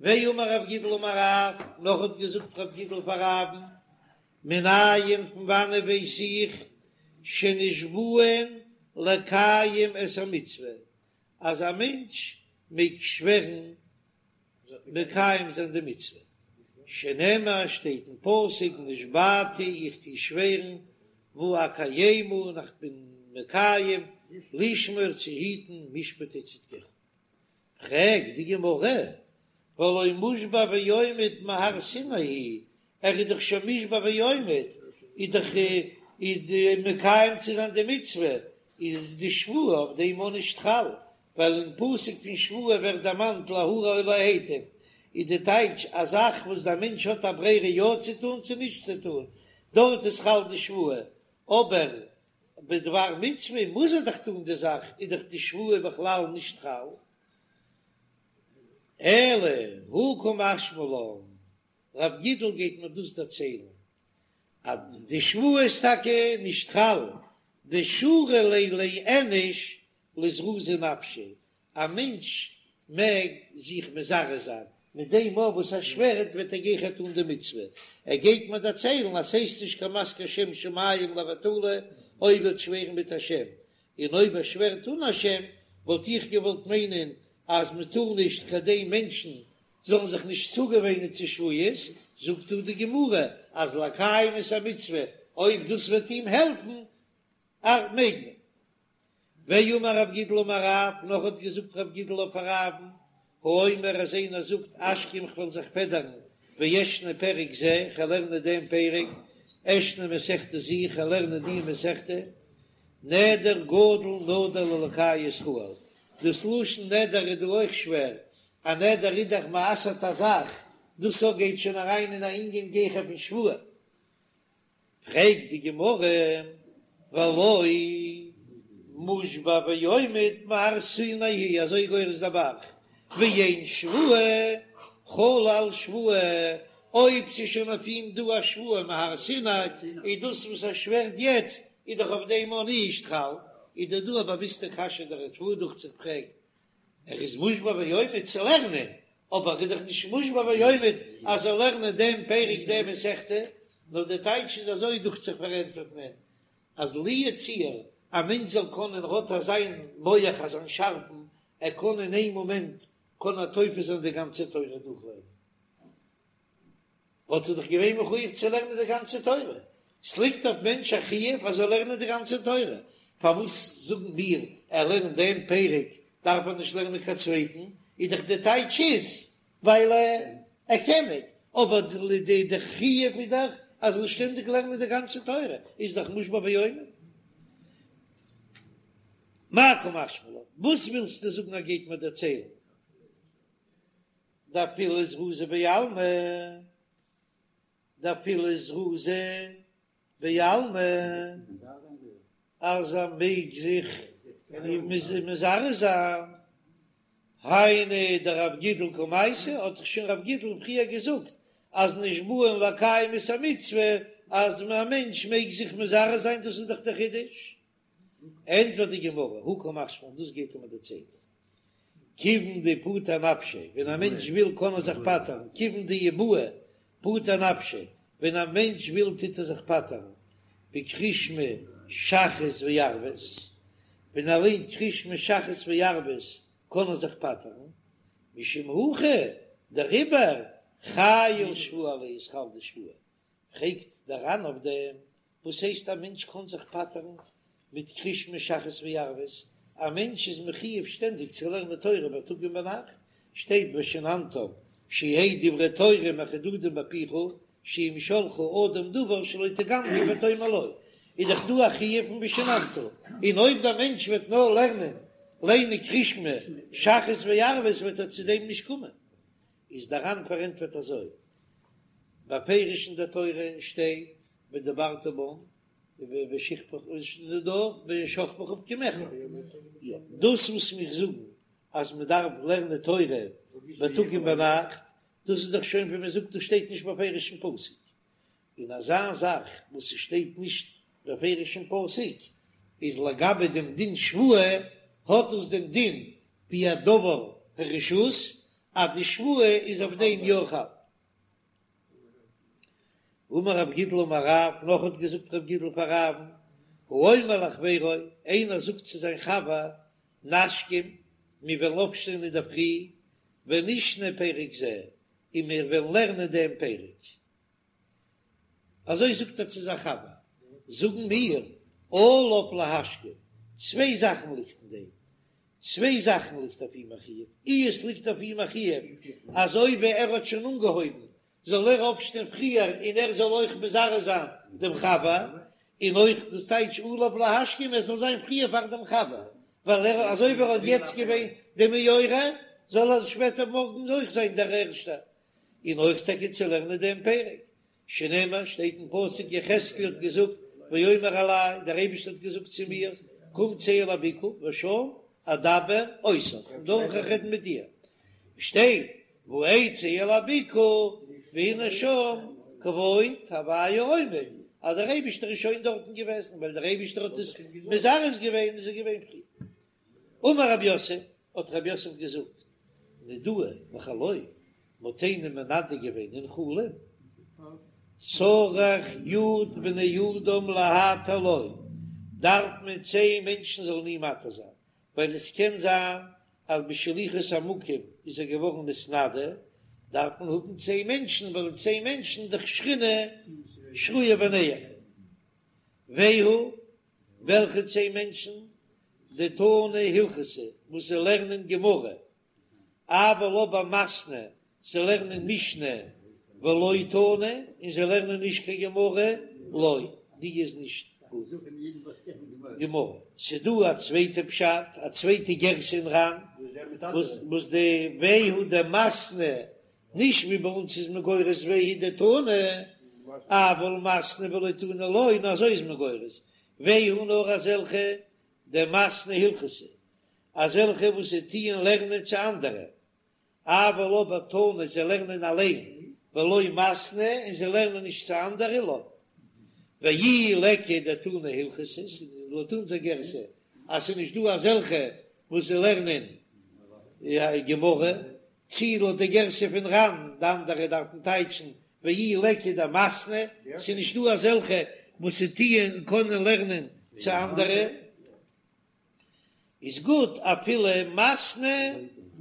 ואמר רב גידל אמר רב, נאך האט געזאגט רב גידל פאר רב'ן, מנין פון וואנען ווייס איך שנשבעין לקיים את המצוה, אז א מענטש מעג שווערן מקיים זיין די מצוה, שנאמר שטייט אין פסוק נשבעתי איך טו שווערן ואקיימה און איך בין מקיים לשמור צו היטן משפטי צדקך. פרעגט די גמרא, והלא מושבע ועומד מהר סיני הוא, ער איז דאך שוין מושבע ועומד, איז דאך איז די מקיים צו זיין די מצוה, איז די שבועה אויף דעם אויך נישט חל, ווייל אין פסוק פון שבועה ווערט דערמאנט להרע או להיטיב, איז די טייטש א זאך וואס דער מענטש האט א ברירה יא צו טון צו נישט צו טון, דארט איז חל די שבועה, אבער בדבר מצוה מוז ער דאך טון די זאך, איז דאך די שבועה בכלל נישט חל. אלא הא קא משמע לן, רב גידל גייט מיר דאס דערציילן אז די שבועה איז טאקע נישט חל, דשרי ליה לאיניש לזרוזי נפשיה, א מענטש מעג זיך מזרז זיין מיט דעם אויף וואס ער שווערט וועט ער גיכער טון די מצוה, ער גייט מיר דערציילן אז ס'הייסט נישט קיין מזכיר שם שמים לבטלה אויב ער וועט שווערן מיט א שם, און אויב ער שווערט אן א שם וואלט איך געוואלט מיינען אז מ'טאר נישט כדי מענטשן זאלן זיך נישט צוגעוואינען צו שבועות, זאגט דא די גמרא אז לקיים את המצוה אויב דאס וועט אים העלפן מעג מען. ואמר רב גידל אמר רב, נאך האט געזאגט רב גידל אויף רב'ן, האומר אז איינער זאגט אשכים כ'וועל זיך פעדערן ואשנה פרק זה, כ'וועל לערנען דעם פרק, אשנה מסכתא זו, כ'וועל לערנען די מסכתא, נדר גדול נדר לאלקי ישראל, דאס לשון נדר איז דא אויך שווער, א נדר איז דאך מ'אסר'ט א זאך, דאס אויך גייט שוין אריין אין א ענין גיכער פון שבועה. פרעגט די גמרא, והלא מושבע ועומד מהר סיני הוא, אזוי גורס דער ב"ח, ואין שבועה חלה על שבועה, אויב ס'איז שוין אויף אים דא א שבועה מהר סיני, איז דאס וואס ער שווערט יעצט איז דאך אויף דעם אויך נישט חל, איז דא דא א באוויסטע קשיא דער ריטב"א דוכט זיך פרעגט, ער איז מושבע ועומד צו לערנען, אבער ער איז דאך נישט מושבע ועומד אז ער זאל לערנען דעם פרק דעם מסכתא, נאר די טייטש איז אזוי דוכט זיך פארענטפערט מען, אז לו יצוייר א מענטש זאל קענען האט אזיין מח אזיין שארפן, ער קען אין איין מאמענט קען ער תופס זיין די גאנצע תורה דורכלערנען. וואלט ער דאך געווען מחויב צו לערנען די גאנצע תורה, ס'ליגט אויף מענטש א חיוב אז ער זאל לערנען די גאנצע תורה, פארוואס זאגן מיר ער לערנט דעם פרק דארף ער נישט לערנען קיין צווייטן, איז דאך די טייטש איז ווייל ער קען ניט, אבער די די חיוב איז דאך אז ער זאל שטענדיג לערנען די גאנצע תורה, איז דאך מושבע ועומד. מאי קא משמע לן, וואס ווילסטו זאגן ער גייט מיר דערציילן? דאפילו זרוזא בעלמא, דאפילו זרוזא בעלמא, אז ער מעג זיך מזרז זיין, היינו דרב גידל קמייתי, האט דאך שוין רב גידל פריער געזאגט אז נשבעין לקיים את המצוה, אז א מענטש מעג זיך מזרז זיין, דאס איז דאך דער חידוש. ענטפערט די גמרא, הא קא משמע לן, דאס גייט ער מיר דערציילן, כיוון דפטר נפשיה, ווען א מענטש וויל קען ער זיך פטר'ן, כיוון דאי בעי פטר נפשיה, ווען א מענטש וויל טוט ער זיך פטר'ן, בקריאת שמע שחרית וערבית, ווען ער ליינט קריאת שמע שחרית וערבית קען ער זיך פטר'ן, משום הכי, דעריבער חיילא שבועה עליה איז חל די שבועה, פרעגט דער ר"ן אויף דעם, וואס הייסט א מענטש קען זיך פטר'ן מיט קריאת שמע שחרית וערבית? א מענטש איז מחיוב שטענדיג צו לערנען תורה בייטאג און ביינאכט, שטייט ושננתם שיהא דברי תורה מחודדים בפיך שאם ישאלך אדם דבר שלא תגמגם ותאמר לו, איז דאך דא א חיוב פון ושננת, און אויב דער מענטש וועט נאר לערנען ליינען קריאת שמע שחרית וערבית וועט ער צו דעם נישט קומען. איז דער ר"ן פארענטפערט אזוי, בפירוש אין דער תורה שטייט ודברת בם בשכבך ובקומך, יא, דאס וואס מיר זאגן אז מען דארף לערנען תורה בייטאג און ביינאכט, דאס איז דאך שוין ווי מען זאגט דאס שטייט נישט בפירוש אין פסוק, און אזא זאך וואס ס'שטייט נישט בפירוש אין פסוק, איז לגבי דעם דין שבועה, האט דאס דעם דין ווי א דבר הרשות. אז די שבועה איז אויף דעם יא חל. אמר רב גידל אמר רב, נאך האט געזאגט רב גידל פאר רב'ן, האומר לחבירו, איינער זאגט צו זיין חבר, נשכים, מיר וועלן אויפשטיין אינדערפרי, ונשנה פרק זה, און מיר וועלן לערנען דעם פרק. אזוי זאגט ער צו זיין חבר, זאגן מיר, עליו להשכים, צוויי זאכן ליגט אין דעם, צוויי זאכן ליגט אויף אים א חיוב, אי עס ליגט אויף אים א חיוב אז אויב ער האט שוין אנגעהויבן זאל ער אויפשטיין פריער און ער זאל אויך מזרז זיין דעם חבר, און אויך דאס טייטש עליו להשכים ער זאל זיין פריער פאר דעם חבר, ווייל ער אזוי ווי ער האט יעצט געווען די מעורר זאל ער שפעטער מארגן אויך זיין דער ערשטער, און אויך טאקע צו לערנען דעם פרק, שנאמר, שטייט אין פסוק, יחזקאל האט געזאגט, ויאמר אלי, דער אייבערשטער האט געזאגט צו מיר, קום צא אל הבקעה, ושם אדבר אותך, און דארט וועל איך רעדן מיט דיר. שטייט, ואצא אל הבקעה, והנה שם כבוד הוי' עומד, אז דער אייבערשטער איז שוין דארטן געוועזן, ווייל דער אייבערשטער האט עס מזרז געווען, איז ער געווען פריער. אמר רב יוסף, האט רב יוסף געזאגט, נידוהו בחלום, מ'האט איינעם מנדה געווען אין חלום, צריך י' בני אדם להתיר לו, דארף מען צען מענטשן זאלן אים מתיר זיין, ווייל עס קען זיין אז בשליחות המקום איז ער געווארן נתנדה, דארף מען האבן צען מענטשן, ווייל צען מענטשן דאך שכינה שרויה ביניהם. והוא וועלכע צען מענטשן? דתני הלכתא וואס זיי לערנען גמרא, אבל אבער מתני זיי לערנען משנה ולא תני און זיי לערנען נישט קיין גמרא, לא, די איז נישט גוט גמרא. ס'דא א צווייטע פשט, א צווייטע גירסא אין ר"ן, וואס די והוא דמתני נישט ווי ביי אונז איז מען גורס והוא דתני, אבל מתני ולא תני לא, נאר אזוי איז מען גורס, והוא נאר אזעלכע דמתני הלכתא, אזעלכע וואס זיי טוען לערנען צו אנדערע, אבל אבער תני זיי לערנען אליין, ולא מתני און זיי לערנען נישט צו אנדערע לא. ואי ליכא דתני הלכתא, לויט אונזער גירסא אז ס'איז נישט דא אזעלכע וואס זיי לערנען גמרא, צי לויט די גירסא פון ר"ן, די אנדערע דארפן טייטשן ואי ליכא דמתני, ס'איז נישט דא אזעלכע וואס ס'טוען און קענען לערנען צו אנדערע, איז גוט אפילו מתני,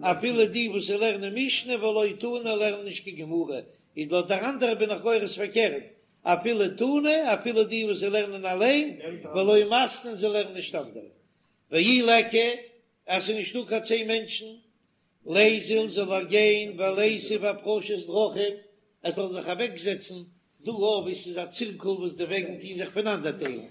אפילו די וואס לערנען משנה ולא תני לערנען נישט קיין גמרא, איז לויט דער אנדערע בין איך גורס פארקערט, אפילו תני, אפילו די וואס זיי לערנען אליין, ולא מתני זיי לערנען נישט אנדערע. ואי ליכא, אז ס'איז נישטא קיין צען מענטשן, ליזיל זאל ער גיין וליתיב אפרשת דרכים, ער זאל זיך אוועקזעצן דא וואו ס'איז א צירקל וואס די וועגן טוהן זיך פונאנדערטיילן,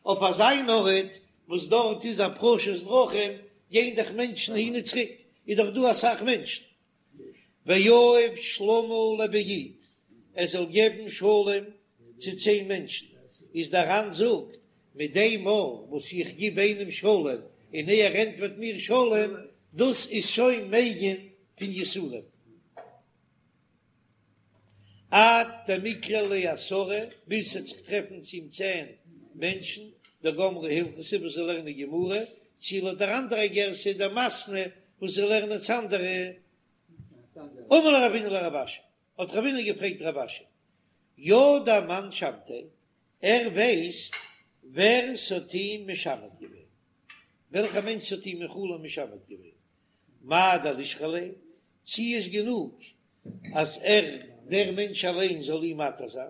אויף אזיין ארט וואס דארט איז אפרשת דרכים, גייען דאך מענטשן הין און צוריק, איז דאך דא אסאך מענטשן. ויהיב שלמא לבי יו"ד, ער זאל געבן שלום צו צען מענטשן, איז דער ר"ן זאגט, מיט דעם מאל וואס איך גיב איינעם שלום און ער ענטפערט מיר שלום, דאס איז שוין מגין פון יסורים. עד דמיקרו ליה עשרה, ביז ס'וועט זיך טרעפן צו אים צען מענטשן, דגמרי הלכתא וואס זיי לערנען גמרא, צי לויט דער אנדערע גירסא דמתני וואס זיי לערנען צו אנדערע. אמר ליה רבינא לרב אשי, האט רבינא געפרעגט רב אשי, ידע מאן שמתיה, ער ווייסט ווער ס'האט אים משמת געווען, וועלכע מענטש האט אים אין חלום משמת געווען, מהו דלישרי ליה, צי איז גענוג אז ער דער מענטש אליין זאל אים מתיר זיין,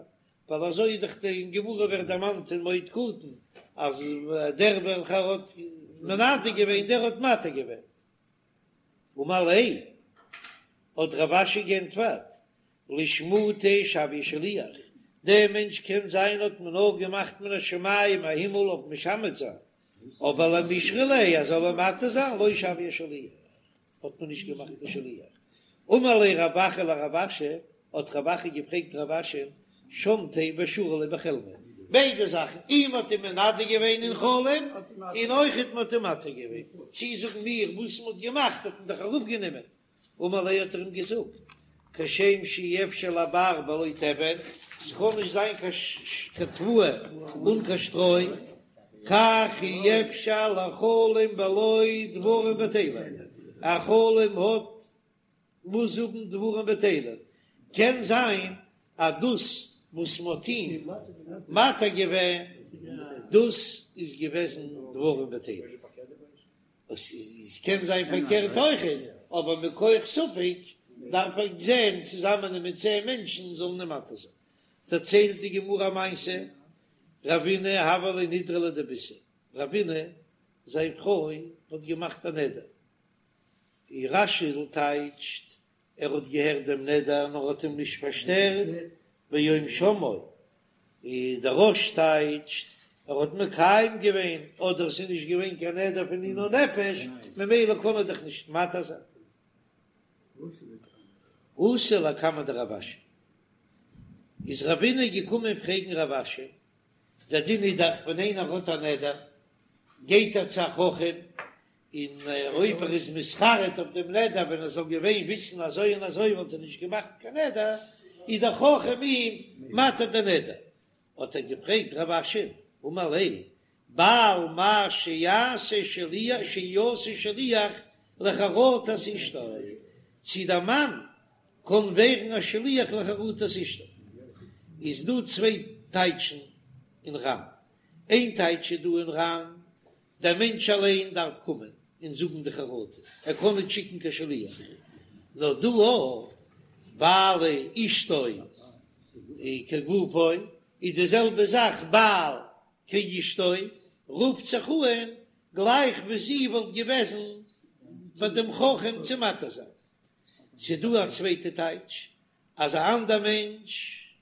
ווייל אזוי איז דאך אין גמרא ווערט דערמאנט אין מועד קטן אז דער וועלכער האט מנדה געווען דער האט מתיר געווען. אמר ליה, האט רב אשי גענטפערט, לשמוטי שויה שליח, דער מענטש קען זיין האט מען נאר געמאכט מן השמים א הימל אויף משמת זיין, אבער למישרי ליה אז זאל ער מתיר זיין לא שויה שליח, האט מען נישט געמאכט קיין שליח. אמר ליה רב אחא לרב אשי, האט רב אחא געפרעגט רב אשי, שמתיה ושרו ליה בחלמיה, ביידע זאכן, אים האט אים מנדה געווען אין חלום, און אויכעט מען האט אים מתיר געווען, צי זאגן מיר וואס מען האט געמאכט האט מען דאך אראפגענומען, אמר ליה האט ער אים געזאגט, כשם שאי אפשר לבר בלא תבן, ס'קען נישט זיין קיין תבואה אן קיין שטרוי, כך אי אפשר לחלום בלא דברים בטלים, א חלום האט. מוז האבן דברים בטלים, קען זיין אז דאס וואס מ'האט אים מתיר געווען דאס איז געוועזן דברים בטלים, עס קען זיין פארקערט אויכעט, אבער מכח ספק דארף ער זען צוזאמען מיט צען מענטשן זאלן אים מתיר זיין. דערציילט די גמרא א מעשה, רבינא הוה ליה נדרא לדביתהו, רבינא זיין פרוי האט געמאכט א נדר, ווי רש"י טייטשט, ער האט געהערט דעם נדר נאר האט אים נישט פארשטערט ביום שמעו, און דער רא"ש טייטשט, ער האט מקיים געווען, אדער עס איז נישט געווען קיין נדר פון עינוי נפש, ממילא קען ער דאך נישט מתיר זיין. אתא לקמיה דרב אשי, איז רבינא געקומען פרעגן רב אשי, דער דין איז דאך ווען איינער האט א נדר גייט ער צו א חכם, און אויב ער איז מתחרט אויף דעם נדר, ווען ער זאל געווען וויסן אזוי און אזוי וואלט ער נישט געמאכט קיין נדר, איז דער חכם אים מתיר דער נדר. האט ער געפרעגט רב אשי, אמר ליה, בעל מהו שיעשה שליח שיעשה שליח לחרטת אשתו, צי דער מאן קען ווערן א שליח לחרטת אשתו, איז דא צוויי טייטשן אין ר"ן, איין טייטש איז דא אין ר"ן דער מענטש אליין דארף קומען און זאגן די חרטה, ער קען נישט שיקן קיין שליח, נאר דא אויך ווייל אשתו כגופו איז די זעלבע זאך בעל כאשתו, רופט זיך אן גלייך ווי זי וואלט געוועזן ביי דעם חכם צו מתיר זיין. ס'דא א צווייטע טייטש אז א אנדער מענטש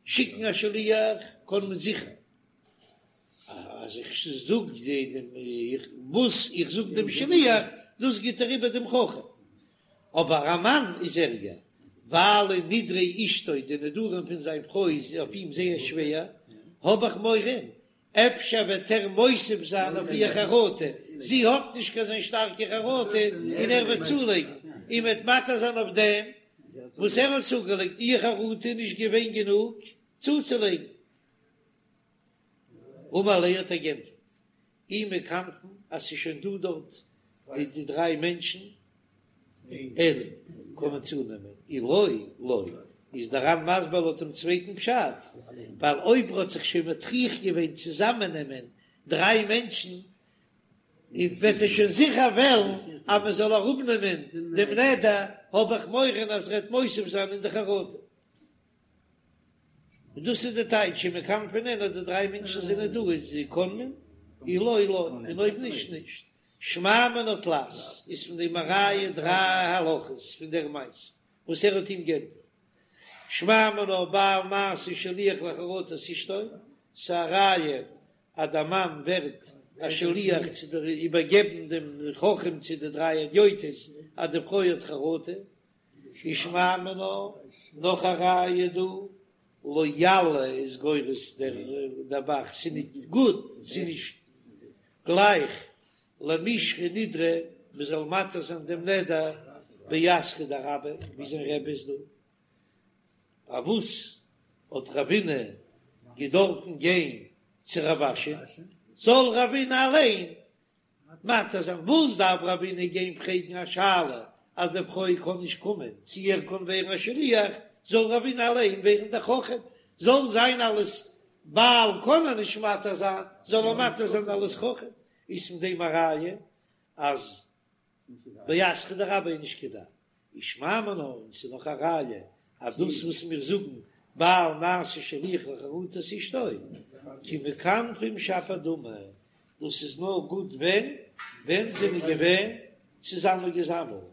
שיקן א שליח קען מען זיכער אז איך זאג דעם וואס איך זאג דעם שליח דאס גיט ער איבער דעם חכם, אבער א מאן איז ערגער ווייל נדרי אשתו די נדרים פון זיין פרוי איז אויף אים זייער שווער, האב איך מורא אפשר וועט ער מוסיף זיין אויף איר חרטה, זי האט נישט קיין אזוין שטארקע חרטה און ער וועט צולייגן און וועט מתיר זיין אויף דעם וואס ער האט צוגעלייגט, איר חרטה איז נישט געווען גענוג צוצולייגן. אמר ליה האט ער גענטפערט, אי מכנפין אז ס'איז שוין דא דארט די דריי מענטשן, אין קען מען צונעמען, אי לא לא, איז דער ר"ן מסביר לויט דעם צווייטן פשט, ווייל אויב ער האט זיך שוין מטריח געווען צוזאמענעמען דריי מענטשן, וועט ער שוין זיכער וועלן אז מען זאל אראפנעמען דעם נדר, האב איך מורא אז ער וועט מוסיף זיין אין די חרטה. און דאס איז די טייטש אי מכנפין אין אז די דריי מענטשן זענען דא איז קען מען, אי לא לא, און אויב נישט נישט. שמע מינה תלת איז פון דעם א ראיה דריי הלכות פון דער מעשה וואס ער האט אים גענטפערט. שמע מינה בעל נעשה שליח לחרטת אשתו, ס'איז א ראיה אז דער מאן ווערט א שליח צו איבערגעבן דעם חכם צו די דריי הדיוטות אז די פרוי האט חרטה. ושמע מינה, נאך א ראיה דא, לא יאה איז גורס דער ב"ח, ס'איז נישט גוט, ס'איז נישט גלייך למישרי נדרא, מ'זאל מתיר זיין דעם נדר באתרא דרביה, ווי זיין רבי איז דא. פארוואס האט רבינא געדארפן גיין צו רב אשי? זאל רבינא אליין מתיר זיין, וואס דארף רבינא גיין פרעגן א שאלה אז די פרוי קען נישט קומען, צו ער קען ווערן א שליח, זאל רבינא אליין ווערן דער חכם, זאל זיין אלס בעל קען ער נישט מתיר זיין, זאל ער מתיר זיין אלס חכם, איז פון דעם א ראיה אז באתרא דרביה איז נישט כדאי. ושמע מינה, און ס'איז נאך א ראיה אז דאס וואס מיר זאגן בעל נעשה שליח לחרטת אשתו כי מכנפין שפיר דמי, דאס איז נאר גוט ווען ווען זענען געווען צוזאמען געזאמלט.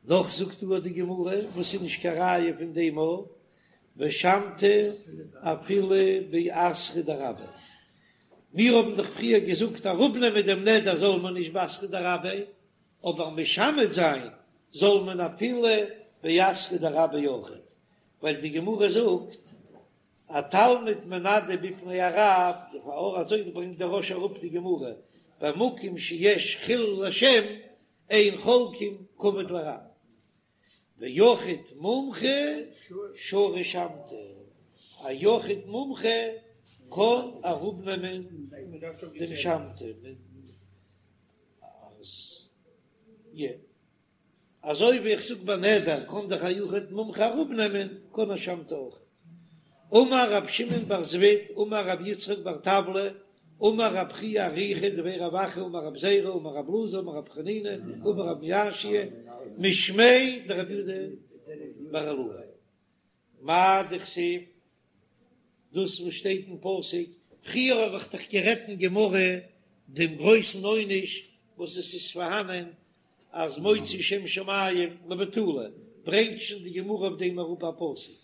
נאך זאגט דא די גמרא וואס איז נישט קיין ראיה פון דעם א ושמתא אפילו באתרא דרביה, מיר האבן דאך פריער געזאגט אראפנעמען דעם נדר זאל מען נישט באתרא דרביה, אבער משמט זיין זאל מען אפילו באתרא דרביה אויכעט, ווייל די גמרא זאגט א תלמיד מנדה בפני הרב, לכאורה אזוי ברענגט דער רא"ש אראפ די גמרא, במקום שיש חילול השם אין חולקים כבוד לרב, ויחיד מומחה שרי שמתא, א יחיד מומחה קען אראפנעמען דעם שמתא. אזוי ווי איך זאג ביי נדר קען דאך א יחיד מומחה אראפנעמען, קען א שמתא אויך. אמר רב שמעון בר זביד אמר רב יצחק בר טבלא אמר רב חייא אריכא דבי רב אחא אמר רב זירא אמר רב אלעזר אמר רב חנינא אמר רב מיאשא משמיה דרב יהודה בר אילעאי מאי דכתיב דאס וואס שטייט אין פסוק, פריער האב איך דאך גערעדט אין גמרא דעם גרויסן עונש וואס עס איז פארהאנען אז מוציא שם שמים לבטלה, ברענגט שוין די גמרא אויף דעם אראפ א פסוק,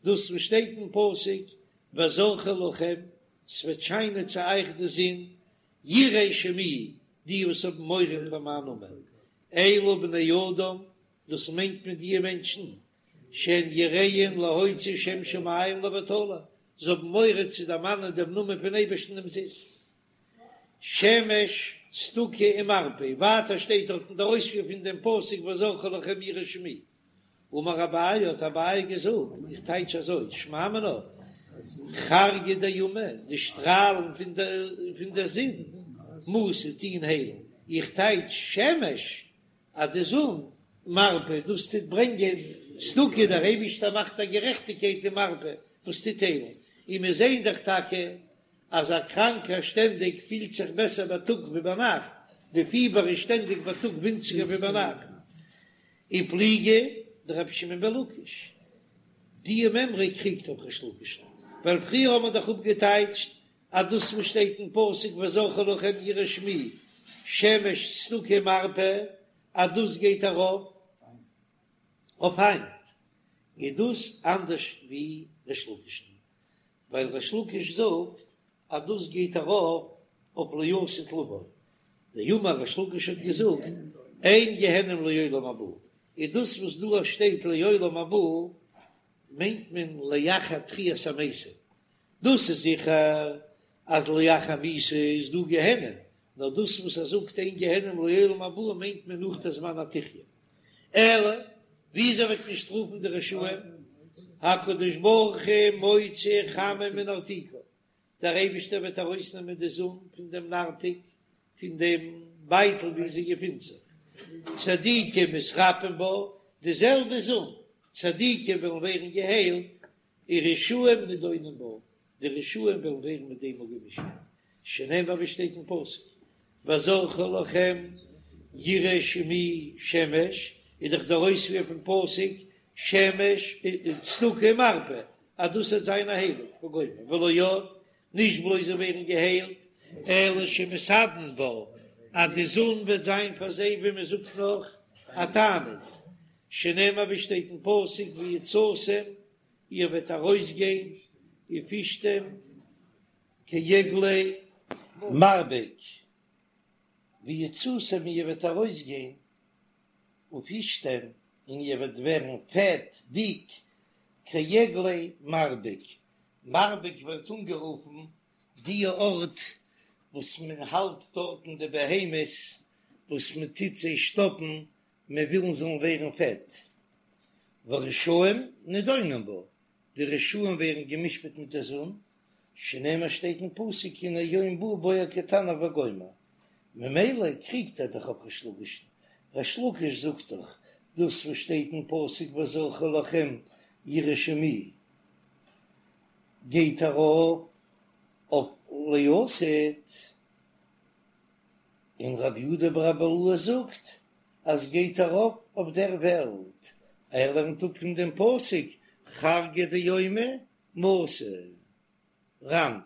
דאס וואס שטייט אין פסוק וזרחה לכם, ס'וועט שיינען צו אייך די זון, יראי שמי, די וואס האבן מורא פאר מיין נאמען, אלו בני אדם, דאס מיינט מען די מענטשן, שהן יראים להוציא שם שמים לבטלה, זיי האבן מורא צו דערמאנען דעם נאמען פון אייבערשטן אומזיסט. שמש צדקה ומרפא, ווייטער שטייט דארט אין דער אויספיר פון דעם פסוק וזרחה לכם יראי שמי. אמר אביי, האט אביי געזאגט, איך טייטש אזוי, שמע מינה, חרגא דיומא, די שטראלן פון דער זון, מסו, טוען היילן, איך טייטש שמש, אז די זון, מרפא, דאס טוט ברענגען צדקה, דער אייבישטער מאכט א גערעכטיגקייט און מרפא, וואס טוט היילן, און מיר זעען דאך טאקע אז א קראנקער שטענדיג פילט זיך בעסער בייטאג ווי ביינאכט, די פיבער איז שטענדיג בייטאג ווינציגער ווי ביינאכט. ופליגא דרבי שמעון בן לקיש, די מימרא קריגט אויף ריש לקיש'ן, ווייל פריער האט מען דאך אפגעטייטשט אז דאס וואס שטייט אין פסוק וזרחה לכם יראי שמי שמש צדקה ומרפא אז דאס גייט ארויף אויף היינט, איז דאס אנדערש ווי ריש לקיש'ן, ווייל ריש לקיש זאגט אז דאס גייט ארויף אויף לעתיד לבוא, דאמר ריש לקיש האט געזאגט אין גיהנום לעולם הבא, איז דאס וואס דא שטייט לעולם הבא מיינט מען לאחר תחיית המתים, דאס איז זיכער אז לאחר מיתה איז דא גיהנום, נאר דאס וואס ער זאגט אין גיהנום לעולם הבא מיינט מען נאך דער זמן התחיה. אלא וויאזוי וועט מען שטראפן די רשעים? הקדוש ברוך הוא מוציא חמה מנרתיקה, דער אייבישטער וועט ארויסנעמען די זון פון דעם נרתיק, פון דעם בייטל וואו זי געפינט זיך, צדיקים מתרפאין בה, די זעלבע זון, צדיקים וועלן ווערן געהיילט, ורשעים נידונים בה, די רשעים וועלן ווערן מיט דעם אפגעמשפט, שנאמר ווי שטייט אין פסוק, וזרחה לכם יראי שמי שמש, איז דאך דער אויספיר פון פסוק שמש צדקה ומרפא, אז דאס וועט זיין א היילונג וגומר, ולא עוד, נישט בלויז זיי ווערן געהיילט, אלא שמתענין בה, אז די זון וועט זיין פאר זיי ווי מען זאגט נאך א תענוג, שנאמר ווי שטייט אין פסוק ויצאתם איר וועט ארויסגיין ופשתם כעגלי מרבק, ויצאתם איר וועט ארויסגיין ופשתם און איר וועט ווערן פעט, דיק, כעגלי מרבק, מרבק ווערט אנגערופן די ארט וואס מען האלט דארטן די בהמות וואס מען טוט זיי שטאפן מען וויל זאלן ווערן פעט, ורשעים נדונים בה, די רשעים ווערן גע'משפט מיט דער זון, שנאמר שטייט אין פסוק הנה יום בא בוער כתנור וגומר, ממילא קריגט ער דאך אויף ריש לקיש'ן, ריש לקיש זאגט דאך דאס וואס שטייט אין פסוק וזרחה לכם יראי שמי גייט ארויף אויף לעתיד. און רבי יהודה ברבי אילעאי זאגט אז גייט ארויף אויף דער וועלט, ער לערנט אפ פון דעם פסוק חרגא דיומא מסי. ר"ן.